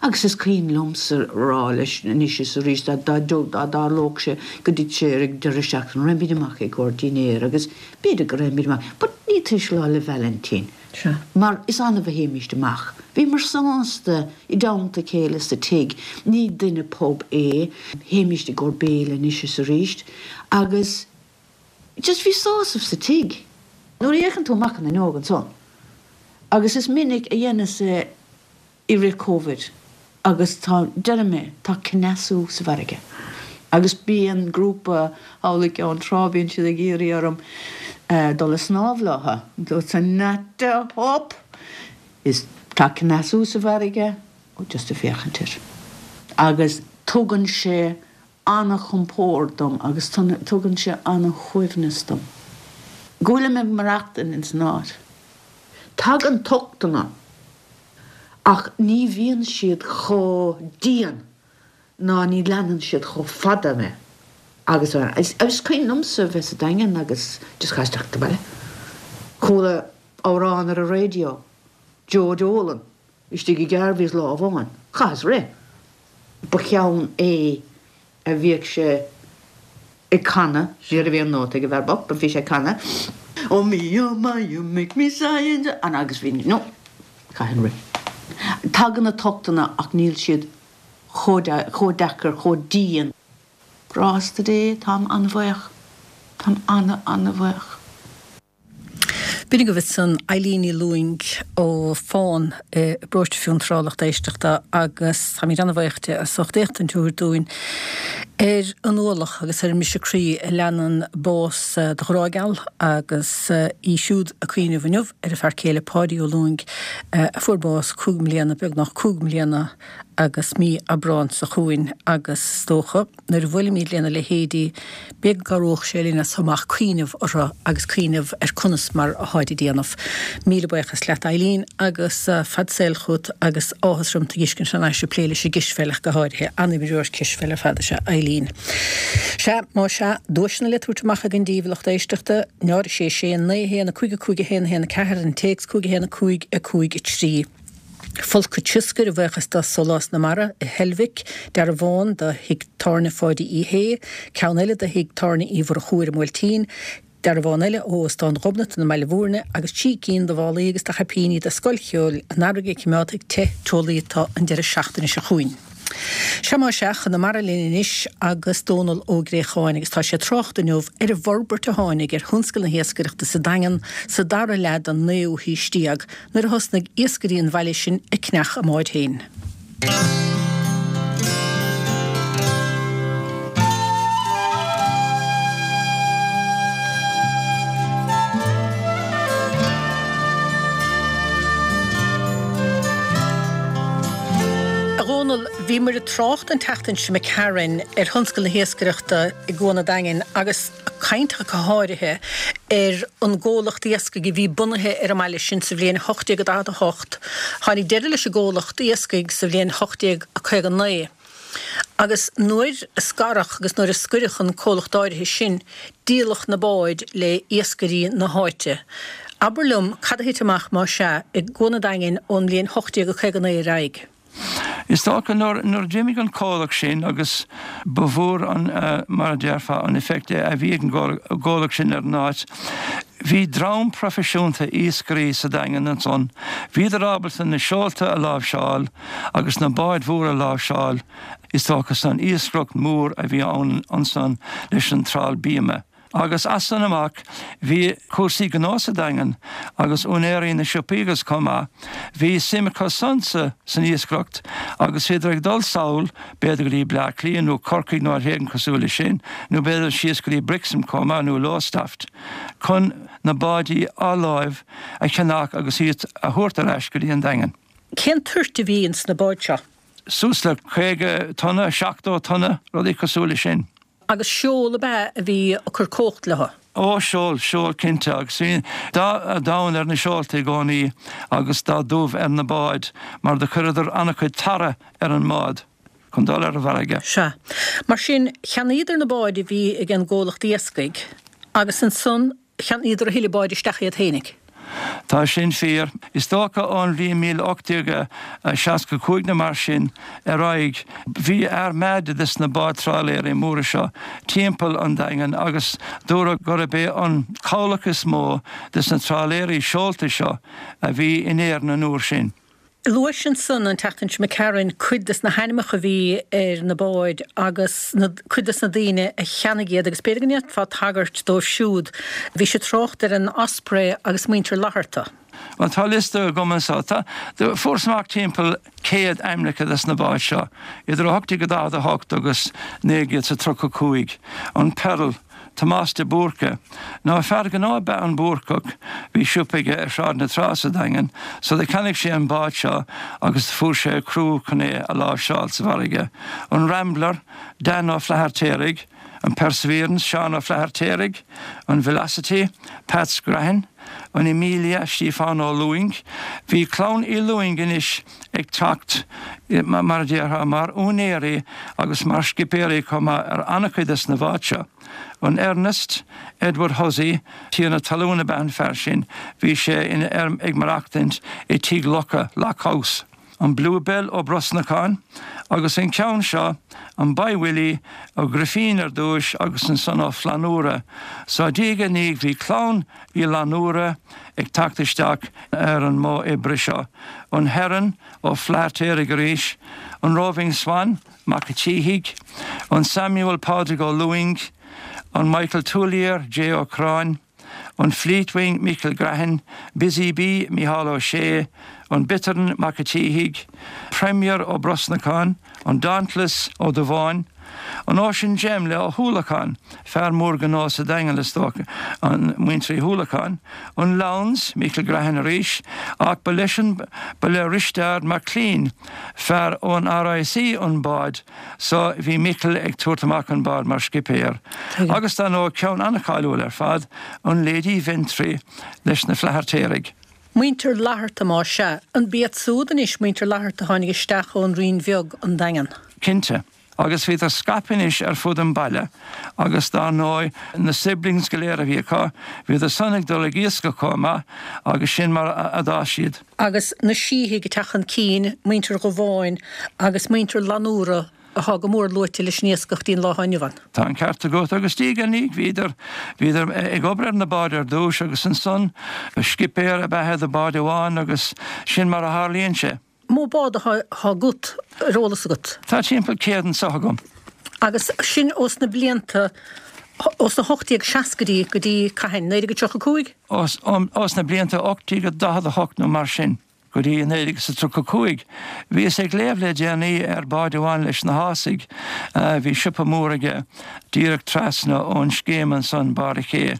agus is cuimhin liomsa rá leis anois is arís dá dtarlódh sé go dtitfeadh sé ar an deireadh seachtaine, raghaimid amach i gcomhair dinnéir agus b'fhéidir go raghaimid amach but ní tar éis Lá 'le Vailintín mar is annamh a théimíst amach. Bhíomar sásta i dteannta a chéile sa tigh, ní duine pub é, théimíst i gcomhair béile anois is arís agus Just bhí sásamh sa tigh. Nuair a fhéachann tú amach an fhuinneog ansan, agus is minic a dheineas é i rith Covid, agus tá, deirim é, tá cneasú sa bhfarraige. Agus bíonn grúpa thall i gCeann Trá, bíonn siad ag iarraidh orm dul a snámh leotha. Dúirt not a hope! Is tá cneasú sa bhfarraige, ó just ag féachaint air. Agus tugann sé. Ana-chompord dom agus tugann sé ana-shuaimhneas dom. Go bhfuilim ag maireachtaint ins an áit. Tagann tochtanna ach ní bhíonn siad chomh dian ná ní leanann siad chomh fada mé agus a Is cuimhin liomsa bheith sa Daingean agus just chas isteach sa bhaile. Chuala amhrán ar an raidió, Joe Dolan, istigh i gCarvey's lá amháin. Chaitheas rith. Ba cheann é a bhíodh sé ag canadh, ní raibh aon nóta ag an bhfear bocht, but bhí sé ag canadh, Oh me, oh my, you make me sigh and and agus bhí, no, chaithfinn rith. Tagann na tochtanna ach níl siad chomh chomh deacair, chomh dian. Grásta Dé, táim an-bhuíoch. Táim ana-ana-bhuíoch. B'in agaibh ansan Eileen Ní Lúing ó Fán i bparóiste Fionntrá, lucht éisteachta, agus táimid an-bhuíoch di as ucht éachtaint a thabhairt dúinn ar an ualach agus ar an mbriseadh croí a leanann bás do ghrá geal agus í siúd ag cuimhneamh inniu ar a fear céile Páidí Ó Lúing a fuair bás 5 mbliana, beagnach 5 mbliana agus mí Aibreán seo chugainn agus is dócha. Nuair a bhuailimid lena leithéidí, b'fhéidir go gcabhródh sé linn as seo amach cuimhneamh orthu agus cuimhneamh ar conas mar atáid ag déanamh. Míle buíochas leat Eileen agus fad saoil chugat agus áthas orm tú a dh'fheiscint thar n-ais ag plé leis an gcispheil ach go háirithe. An-imreoir cispheile ar fad is ea Eileen. Sea, má sea, duaiseanna le tabhairt amach againn daoibh a lucht éisteachta, 0 6 6 9 1 5 5 1 1 4, an téacs 5 1 5 5 3. Folcadh tsioscair a bhuíochas do Sólás na Mara i Heilbhic, dearbhán do thigh tábhairne Pháidí Uí Shé, ceann eile do thigh tábhairne Uí Mhurchú ar an mBuailtín, dearbhán eile ó Óstán Ghobnatan i mBaile Bhúirne agus 3 cinn de mhálaí agus de chaipíní do Scoil Cheoil an Earraigh a choimeádfaidh te teolaí tú an deireadh seachtaine seo chugainn. Sea má sea, chun na mara linn anois agus Dónal Ó Gréacháin agus tá sé ag trácht inniu ar an bhforbairt a tháinig ar thionscal na hiascaireachta sa Daingean sa dara leath den naoú haois déag nuair a thosnaigh iascairí an bhaile sin ag ceannach a mbáid féin. A Dhónaill, bhíomar ag trácht an tseachtain seo imigh tharainn ar thionscal na hiascaireachta i gCuan an Daingin agus ag caint ach go háirithe ar an gcomhlacht iascaigh a bhí bunaithe ar an mbaile sin sa bhliain 1848. Tháinig deireadh leis an gcomhlacht iascaigh sa bhliain 1859 agus nuair a scaradh agus nuair a scoireadh an comhlacht áirithe sin, díoladh na báid le iascairí na háite. Abair liom cad a thit amach, más ea, i gCuan an Daingin ón mbliain 1859 ar aghaidh. Is dócha nuair a d'imigh an comhlacht sin agus ba mhór an, mar a déarfá, an effect a bhí ag an gcomhlacht sin ar an áit. Bhí dream proifisiúnta iascairí sa Daingean ansan. Bhíodar ábalta na seolta a láimhseáil agus na báid mhóra a láimhseáil, is dócha, san iascaireacht mhór a bhí ann ansan leis an trál bíoma. Agus as san amach bhí cúrsaí gnó sa Daingean agus úinéirí na siopaí agus chomh maith, bhí suim acu san sa san iascaireacht agus bhíodar ag dul sall b'fhéidir go dtí Bleá Cliath nó Corcaigh nó áit éigin cosúil leis sin nó b'fhéidir síos go dtí Brixham chomh maith nó Lowestoft chun na báidí athláimhe a cheannach agus iad a thabhairt ar ais go dtí an Daingean. Cén toirt a bhí ins na báid seo? Suas le 50 tonna, 70 tonna, rudaí cosúil leis sin. Agus seol ab ea a bhí ag cur cumhacht leo? Ó, seol, seol cinnte. Agus bhí dath donn ar na seolta i gcónaí agus dath dubh ar na báid mar do chuireadar an-chuid tarra ar an mbád chun dul ar an bhfarraige. Sea. Mar sin, cheannaíodar na báid a bhí ag an gcomhlacht iascaigh agus ansan Cheannaíodar a thuilleadh báid isteach iad fhéinig. Tá sin fíor. Is dócha ón bhliain 1865 nó mar sin ar aghaidh, bhí armada des na báid trálaeirí móra seo timpeall an Daingin agus dúradh gurb é an cabhlach is mó des na trálaeirí seolta seo a bhí in Éirinn an uair sin. Luais ansan an tseachtain seo imigh tharainn cuid des na hainmneacha a bhí ar na báid agus na, cuid des na daoine a cheannaigh iad agus b'fhéidir go ndéanfá tagairt dóibh siúd. Bhís ag trácht ar an Osprey agus muintir Fhlatharta. Bhuel, tá liosta agam anso. Tá, fuarthas amach timpeall 100 ainmneacha des na báid seo, idir 1848 agus 1935. An Pearl. Tomás de Búrca. Ná fear gnó ab ea an Búrcach, bhí siopa aige ar Shráid na Trá sa Daingean, so do cheannaigh sé an bád seo agus do fuair sé criú chun é a láimhseáil sa bhfarraige. An Rambler, Dan Ó Flathartaigh, an Perseverance, Seán Ó Flathartaigh, an Velocity, Peats Grehan, an Emilia, Stíofán Ó Lúing. Bhí clann Uí Lúing anois ag teacht, mar a déarfá, mar úinéirí agus mar scipéirí chomh maith ar an-chuid des na báid seo. An Ernest, Edward Hussey, tiarna talún ab ea an fear sin, bhí sé ina ag maireachtaint i Tigh Locha, Lock House. An Bluebell Ó Brosnacháin, agus an ceann seo, an Boy Willie, Ó Grifín ar dtúis agus ansan Ó Flannúra. So diaidh ar ndiaidh bhí clann Uí Fhlannúra ag teacht isteach ar an modh oibre seo. An Heron, Ó Flathartaigh arís, an Roving Swan, Mac a' tSíthigh, an Samuel Pádraig Ó Lúing, an Michael Tuillier, J. Ó Curráin, an Fleetwing, Michael Grehan, Busy Bee, Micheál Ó Sé, an Bittern, Mac a' tSíthigh, Premier Ó Brosnacháin, an Dauntless, Ó Dubháin, an Ocean Gem le Ó hUallacháin, fear mór gnó sa Daingean is dócha, an muintir Uí hUallacháin, an Lowndes, Michael Grehan arís, ach ba leis an, ba le Risteard MacLean, fear ón RIC an bád so bhí Michael ag tabhairt amach an bád mar scipéir. Agus dar ndóigh ceann an-cháiliúil ar fad, an Lady Ventry leis na Flathartaigh. Muintir Fhlatharta más ea. An b'iad súd anois muintir Fhlatharta a tháinig isteach ón Rinn Bheag, an Daingean? Cinnte. Agus bhíodar scaipthe anois ar fud an bhaile agus dar ndóigh na siblings go léir a bhí acu, bhíodar san ag dul ag iascach chomh maith agus sin mar a d'fhás siad. Agus na Síthigh ag teacht chun cinn, muintir Dhubháin agus muintir Fhlannúra atá go mór luaite leis an iascach dtí'n lá atá inniu ann. Tá an ceart agat agus diaidh ar ndiaidh bhíodar, bhíodar ag obair ar na báid ar dtúis agus ansan scipéir ab ea é do bhád amháin agus sin mar a tharlaíonn sé. Mó bád atá agat, ar eolas agat? Tá timpeall 100 anso agam. Agus sin ós na blianta, ós na 1860idí go dtí cathain? 1935? Ós na blianta 1848 nó mar sin go dtí 1935. Bhíos ag léamh le déanaí ar bád amháin leis na hÁsaigh, bhí siopa mór aige díreach trasna ón scéim ansan, Barr a' Ché,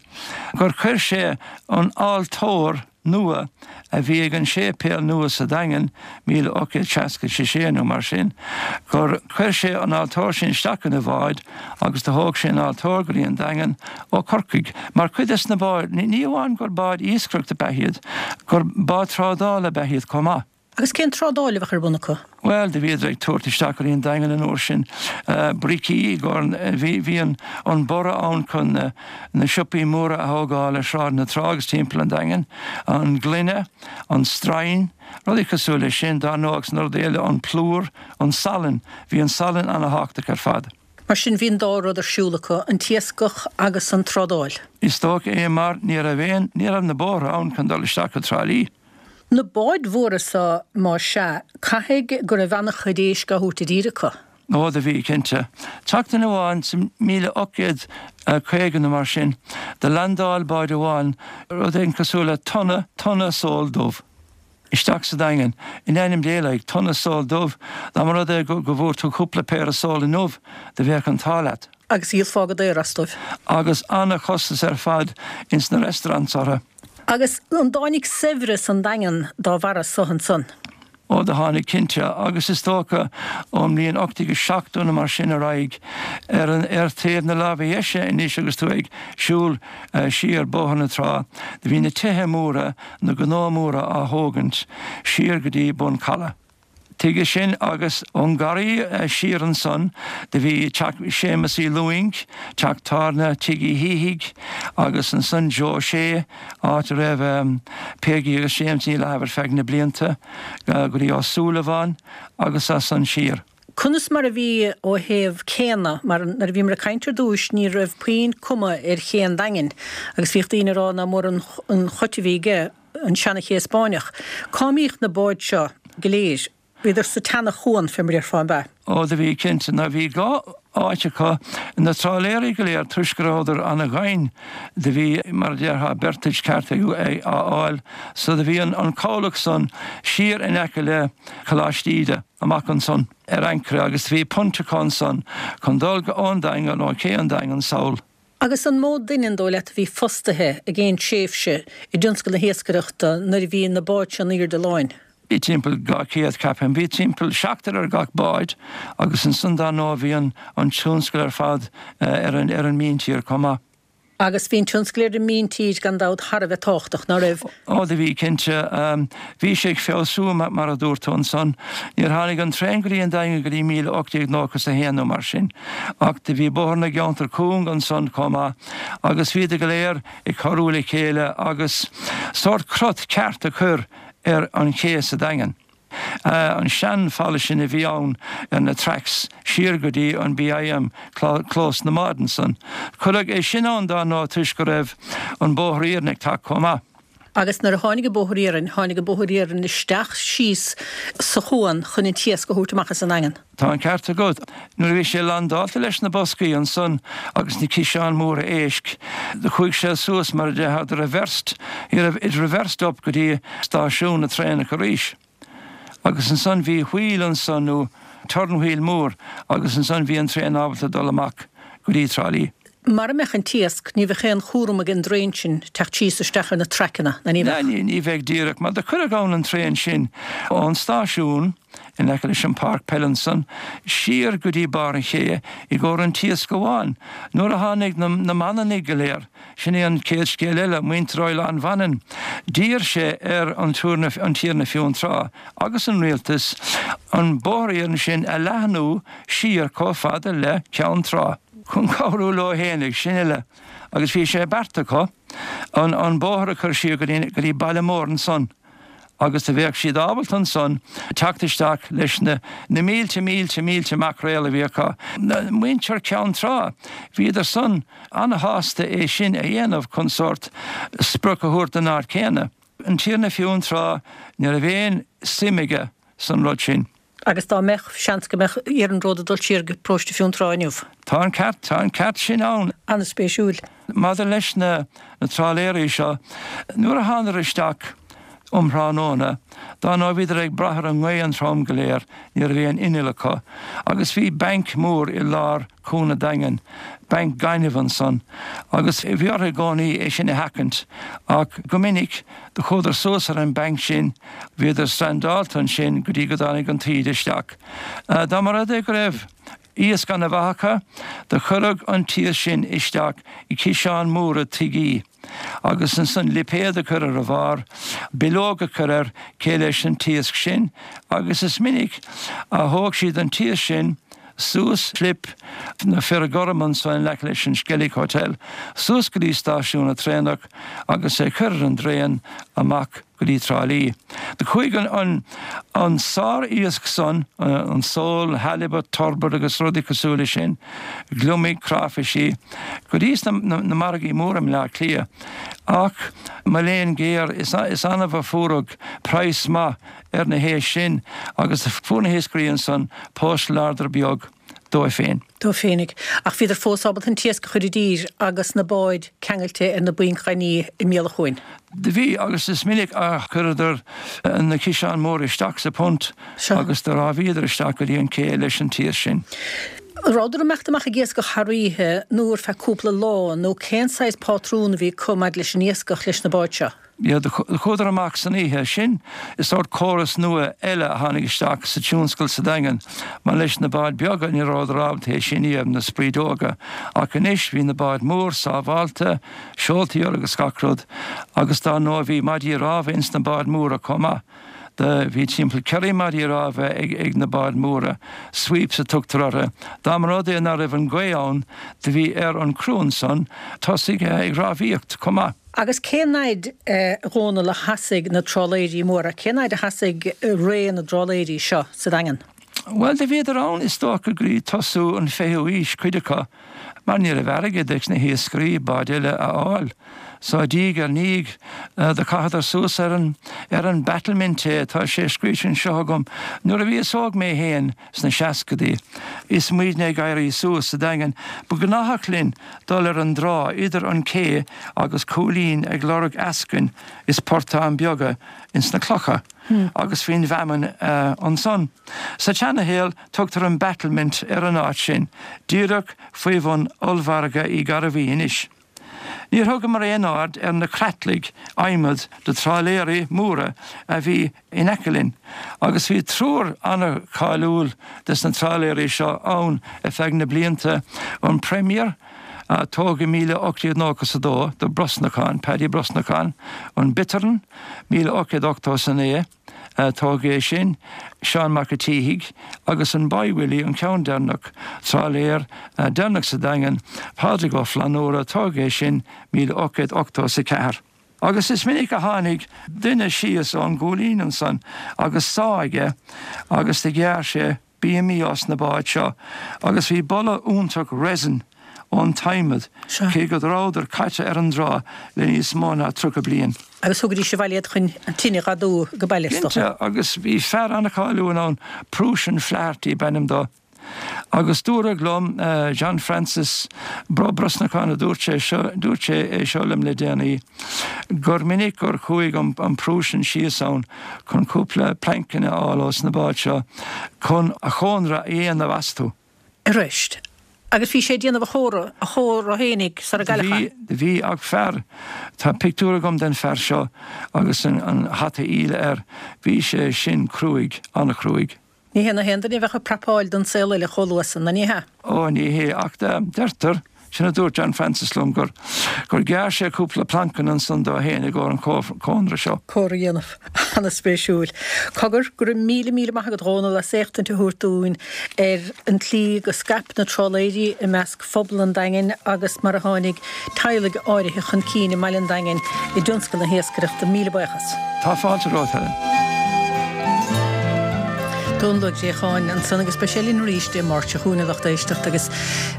gur chuir sé an altóir nua a bhí ag an séipéal nua sa Daingean, 1866 nó mar sin, gur chuir sé an altóir sin isteach ina bhád agus do thóg sé an altóir go dtí an Daingean ó Chorcaigh. Mar cuid des na báid, ní amháin gur báid iascaireachta ab ea iad, gur báid trádála ab ea iad chomh maith. Agus cén trádáil a bheadh ar bun acu? Bhuel, do bhíodar ag tabhairt isteach go dtí an Daingean an uair sin bricí i gcomhair, bhí, bhí an, an borradh ann chun na, na siopaí móra a thógáil ar Shráid na Trá agus timpeall an Daingin, an gloine, an stroighin, rudaí cosúil leis sin, dar ndóigh agus na rudaí eile, an plúr, an salann, bhí an salann ana-thábhachtach ar fad. Mar sin bhí an dá rud ar siúl acu, an t-iascach agus an trádáil. Is dócha é mar ní raibh aon, ní raibh na bóithre ann chun dul isteach go Trá Lí. Na báid mhóra so, má sea, caithfidh go raibh an-chuid éisc á thabhairt i dtír acu. Ó, do bhí, cinnte. Tseachtain amháin sa 1850 nó mar sin, do landáil bád amháin rud éigin cosúil le tonna, tonna sól dubh. Isteach sa Daingean. In ainm Dé, like, tonna sól dubh, dá mba rud é go, go bhfuair tú cúpla péire sól inniu, do bheadh an t-ádh leat. Agus dhíolfá go daor as dóibh. Agus ana-chostas ar fad ins na restaurants orthu. Agus an dtáinig saibhreas an Daingean dá bharra so ansan? Ó, do tháinig, cinnte, agus is dócha ón mbliain 1870 nó mar sin ar aghaidh, ar an, ar thaobh na láimhe dheise anois agus tú ag siúl siar Bóthar na Trá, do bhí na tithe móra, na gnó móra á thógaint siar go dtí Bun Calaidh. Tuige sin agus ón ngarraí siar ansan do bhí teach Séamus Uí Lúing, teach tábhairne Tigh Uí Shíthigh agus ansan Joe Shea, áit a raibh Peigí agus James Ní Fhlathaibh ar feadh na blianta, go dtí Ó Súilleabháin agus as san siar. Conas mar a bhí ó thaobh céanna, mar nuair a bhíomar ag caint ar dtúis ní raibh puinn cuma ar ché an Daingin agus bhíodh daoine ag rá nach mór an chait a bhí aige, an seana-ché Spáinneach. Cá mbíodh na báid seo go léir? Bhíodar sa tseana-chuan, fé mar a déarfá, an b'ea? Ó, do bhí, cinnte. Now bhí dhá áit acu, na trálaeirí go léir, toisc go rabhadar ana-dhoimhin, do bhí, mar a déarfá, berthage ceart á fháil, so do bhí an cabhlach san siar in aice le Coláiste Íde, amach ansan ar ancaire agus do bhí punt acu ansan chun dul ón Daingean, ó ché an Daingin sall. Agus an mó duine an dóigh leat a bhí fostaithe ag aon tréimhse i dtionscal na hiascaireachta nuair a bhí na báid seo in aoirde láin? Bhí timpeall 200, ceapaim. Bhí timpeall seachtar ar gach bád agus ansan dar ndóigh bhí an tionscal ar fad ar an míntír chomh maith. Agus bhí an tionscal ar an míntír gan dabht thar a bheith tábhachtach, ná raibh? Ó do bhí, cinnte. Bhí sé ag feabhsú mar a dúirt tú ansan. Níor tháinig an traein go dtí an Daingean go dtí 1891 nó mar sin. Ach do bhí Bóthar na gCeantar Cúng ansan chomh maith agus bhíodar go léir ag cabhrú le chéile agus sórt crot ceart a chur ar an ché sa Daingean. An sean-fhalla sin a bhí ann ar na tracks siar go dtí an BIM, clós na mbád ansan. Cuireadh é sin ann dar ndóigh toisc go raibh an bóthar iarainn ag teacht chomh maith. Agus nuair a tháinig an bóthar iarainn, tháinig an bóthar iarainn isteach síos sa chuan chun an t-iasc a thabhairt amach as an nDaingean. Tá an ceart agat. Nuair a bhí sé landáilte leis na boscaí ansan agus na ciseáin mhóra éisc, do chuaigh sé suas mar a déarfá, do reversed, it reversed up go dtí stáisiún na traenach arís. Agus ansan bhí wheel ansan nó turn wheel mór agus ansan bhí an traein ábalta dul amach go dtí Trá Lí. Mara mbeadh an t-iasc, ní bheadh aon chúram ag an dtraein sin teacht síos isteach ar na traiceanna, ná ní bheadh? Ní bheadh díreach, mar do cuireadh ann an traein sin ón stáisiún in aice leis an páirc peile ansan, siar go dtí barr an ché i gcomhair an t-iasc amháin. Nuair a tháinig na Manannaigh go léir, sin é an chéad scéal eile, muintir Oileán Mhanann, d'iarr sé ar an Tiarna Fionntrá agus an rialtas an bóthar iarainn sin a leathnú siar chomh fada le Ceann Trá. chun cabhrú leo fhéinig, sin uile, agus bhí sé beartaithe acu an an bóthar a chur siar go dtí go dtí Baile Móir ansan agus do bheadh siad ábalta ansan teacht isteach leis na na mílte mílte mílte maicréal a bhí acu. Muintir Ceann Trá, bhíodar san ana-shásta é sin a dhéanamh chun sórt sprioc a thabhairt don áit chéanna. An Tiarna Fionntrá, ní raibh aon suim aige san rud sin. Agus dá mbeadh, seans go mbeadh iarnród ag dul siar go paróiste Fionntrá inniu. Tá an ceart, tá an ceart sin ann. An-spéisiúil. Maidir leis na trálaeirí seo, nuair a thánadar isteach um thráthnóna, dá ndóigh bhíodar ag brath ar an ngaoth an t-am go léir, ní raibh aon inneall acu, agus bhí banc mór i lár Cuan an Daingin, banc gainimh ansan, agus bhí orthu i gcónaí é sin a sheachaint, ach go minic do chuadar suas ar an banc sin, bhíodar strandáilte ansin go dtí go dtáinig an taoide isteach. Dá mba rud é go raibh iasc ana mhaith acu, do chuireadh an t-iasc sin isteach i ciseáin móra tuigí. agus ansan lipéad a chur ar a bharr, bileog a chur air cé leis an t-iasc sin, agus is minic a thóg siad an t-iasc sin suas Slip na Fir Gorm ansan in aice leis an Skellig Hotel, suas go dtí stáisiún na traenach agus é chur ar an dtraen amach go dtí Trá Lí. Do chuaigh an an sár-iasc san, an sól, halibut, turbot agus rudaí cosúil leis sin, gliomaigh, cráifisí, go dtí sna na margaí móra i mBleá Cliath. Ach, mo léan géar, is is annamh a fuaireadh praghas maith ar na héisc sin agus fuair na hiascairí ansan post larder beag dóibh féin. Dóibh féinig. Ach bhíodar fós ábalta an t-iasc a chur i dtír agus na báid ceangailte ar na bainc ghainimh i mbéal an chuain. Do bhí, agus is minic a chuireadar na ciseáin móra isteach sa phunt agus do rámhaíodar isteach go dtí an cé leis an t-iasc sin. An rabhadar ag imeacht amach ag iascach thar oíche nó ar feadh cúpla lá nó cén saghas pátrún a bhí acu maidir leis an iascach leis na báid seo? Yeah, do chuadar amach san oíche. Sin is sórt córas nua eile a tháinig isteach sa tionscal sa Daingean, mar leis na báid beaga ní rabhadar ábalta é sin a dhéanamh, na sprideoga, ach anois bhí na báid mór sábhálta, seoltaí orthu agus gach rud, agus dár ndóigh bhí maidí rámha ins na báid móra chomh maith. Do bhí timpeall ceithre maidí rámha ag ag na báid móra, sweeps a tugtar orthu. Dá mba rud é ná raibh an gaoth ann do bhí ar an criú ansan tosaigh ag rámhaíocht chomh maith. Agus cén fhaid, a Dhónaill, a sheasaigh na trálaeirí móra, cén fhaid a sheasaigh ré na dtrálaeirí seo sa Daingean? Bhuel, do bhíodar ann is dócha go dtí tosú an fichiú aois, cuid acu, mar ní raibh airgead ag na hiascairí báid eile a fháil. So diaidh ar ndiaidh do chaitheadar suas ar an ar an battlement é, tá sé scríte anseo agam, nuair a bhíos óg mé fhéin sna seascadaí is muidne ag éirí suas sa Daingean ba ghnáthach linn dul ar an dtrá idir an cé agus Cúilín ag lorg eascainn is portáin beaga ins na clocha agus faoin bhfeamainn ansan. Sa tseanashaol tugtar an battlement ar an áit sin, díreach faoi bhun ollmhargadh Uí Ghairbhí anois. Níor thugamar aon aird ar na creatlaigh adhmaid de trálaeirí móra a bhí in aice linn, agus bhí triúr an-cháiliúil des na trálaeirí seo ann ar feadh na blianta, an Premier, a tógadh i 1892 do Brosnacán, Paddy Brosnacán, an Bittern, 1889, Tógadh é sin, Seán Mac a' tSíthigh, agus an Boy Willie, an ceann deireanach, trálaer deireanach sa Daingean, Pádraig Ó Flannúra, tógadh é sin 1884. Agus is minic a tháinig duine síos ón gCúilín ansan agus sá aige agus do ghearr sé bíomaí os na báid seo agus bhí boladh iontach resin ón t-adhmad cé go rabhadar caite ar an dtrá le níos mó ná 30 bliain. Agus thugaidís abhaile iad chun an tine dh'fhadú go baile is dócha. Cinnte, agus bhí fear an-cháiliúil ann, Prúisean Flaherty b'ainm dó. Agus dúradh liom, John Francis Brosnacán a dúirt sé seo, dúirt sé é seo liom le déanaí, gur minic gur chuaigh an Prúisean síos ann chun cúpla plainceanna a fháil ós na báid seo chun a chónra a dhéanamh astu. Arís. Agus bhí sé ag déanamh a chónra, a chónra fhéinig sara gcailleadh é. Bhí, bhí, ach fear, tá pictiúr agam den fear seo agus an hata íle air, bhí sé sin cruaidh, an-chruaidh. Ní hé na haon duine a bheadh ag prapáil don saol eile chomh luath san, ná ní hea? Ó, ní hé, ach deirtear, sin a dúirt John Francis liom, gur, gur ghearr sé cúpla plancanna ansan dó fhéin i gcomhair an chónra seo. Cónra a dhéanamh. Ana-spéisiúil. Cogar, go raibh míle míle maith agat, a Dhónaill, as éachtaint a thabhairt dúinn ar an tslí go scaip na trálaeirí i measc phobal an Daingin agus mar a tháinig teaghlaigh áirithe chun cinn i mbaile an Daingin i dtionscal na hiascaireachta. Míle buíochas. Tá fáilte romhat, Helen. Dónal Ó Préacháin ansan agus beidh sé linn arís Dé Máirt seo chugainn a lucht éisteachta agus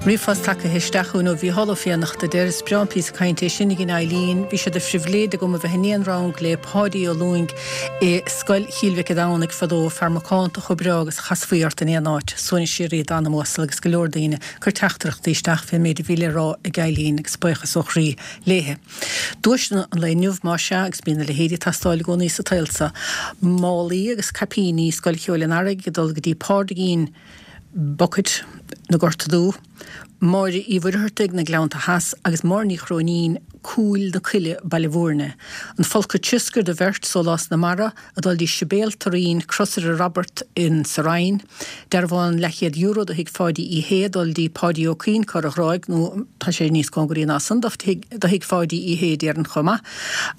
ríomhphost tagtha isteach chugainn ó Mhícheál Ó Fiannachta a deir is breá an píosa cainte é sin ag an Eileen. Bhí sé de phribhléid agam a bheith in aon rang le Páidí Ó Lúing i Scoil Chill Mhic a' Domhnaigh fadó, fear macánta chomh breá agus a chasfaí ort in aon áit. Suaimhneas síoraí dá anam uasal agus go leor daoine cur teachtaireachtaí isteach fén méid a bhí le rá ag Eileen agus buíochas ó chroí léithe. Duaiseanna an lae inniu, más ea, agus bíonn a leithéid ag teastáil i gcónaí sa tsaol seo. Málaí agus caipíní Scoil Cheoil an Earraigh ag dul go dtí Pádraigín Bucket na Gorta Dubh, Máire Uí Mhuircheartaigh, na Gleannta Theas, agus Máire Ní Chróinín, Cúil na Coille, Baile Bhúirne. An folcadh trioscair do bheirt, Sólás na Mara, ag dul dtí Sibéal Turraoin, Crosaire Robert in sa Rinn, dearbhán leathchéad euro do thigh Pháidí Uí Shé ag dul dtí Páidí Ó Cuinn, Corr a' Ghráig, nó tá sé níos cóngaraí ná san do thigh Pháidí Uí Shé déarfainn chomh maith.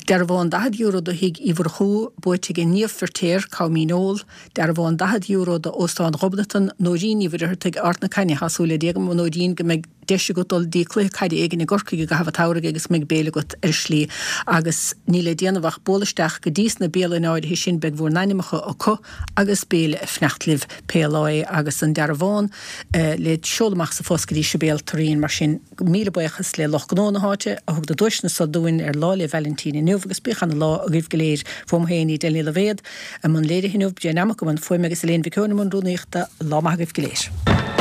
Dearbhán €40 do thigh Uí Mhurchú, buaite ag Niamh Firtéar, Com Míneol, Dearbhán €40 do Óstán Ghobnatan, Nóirín Ní Mhuircheartaigh, Ard na Caithne Tá súil le Dia agam, a Nóirín, go mbeidh deis agat dul dtí cluiche caide éigin i gCorcaigh i gcaitheamh an tsamhraidh agus go mbeidh béile agat ar an slí agus níl le déanamh ach bualadh isteach go dtí sna bialanna áirithe sin, beidh bhur n-ainmneacha acu agus béile ag fanacht libh pé lá é agus an dearbhán le seoladh amach sa phost go dtí Sibéal Turraoin. Mar sin, míle buíochas le lucht gnó na háite a thug na duaiseanna so dúinn ar Lá 'le Vailintín inniu agus bíodh ana lá agaibh go léir. Fúm féin, Edel Ní Loibhéad, i mbun léirithe inniu, Jane Amach i mbun fuaime agus Elaine Mhic Eoin i mbun rúnaíochta. Lá maith agaibh go léir.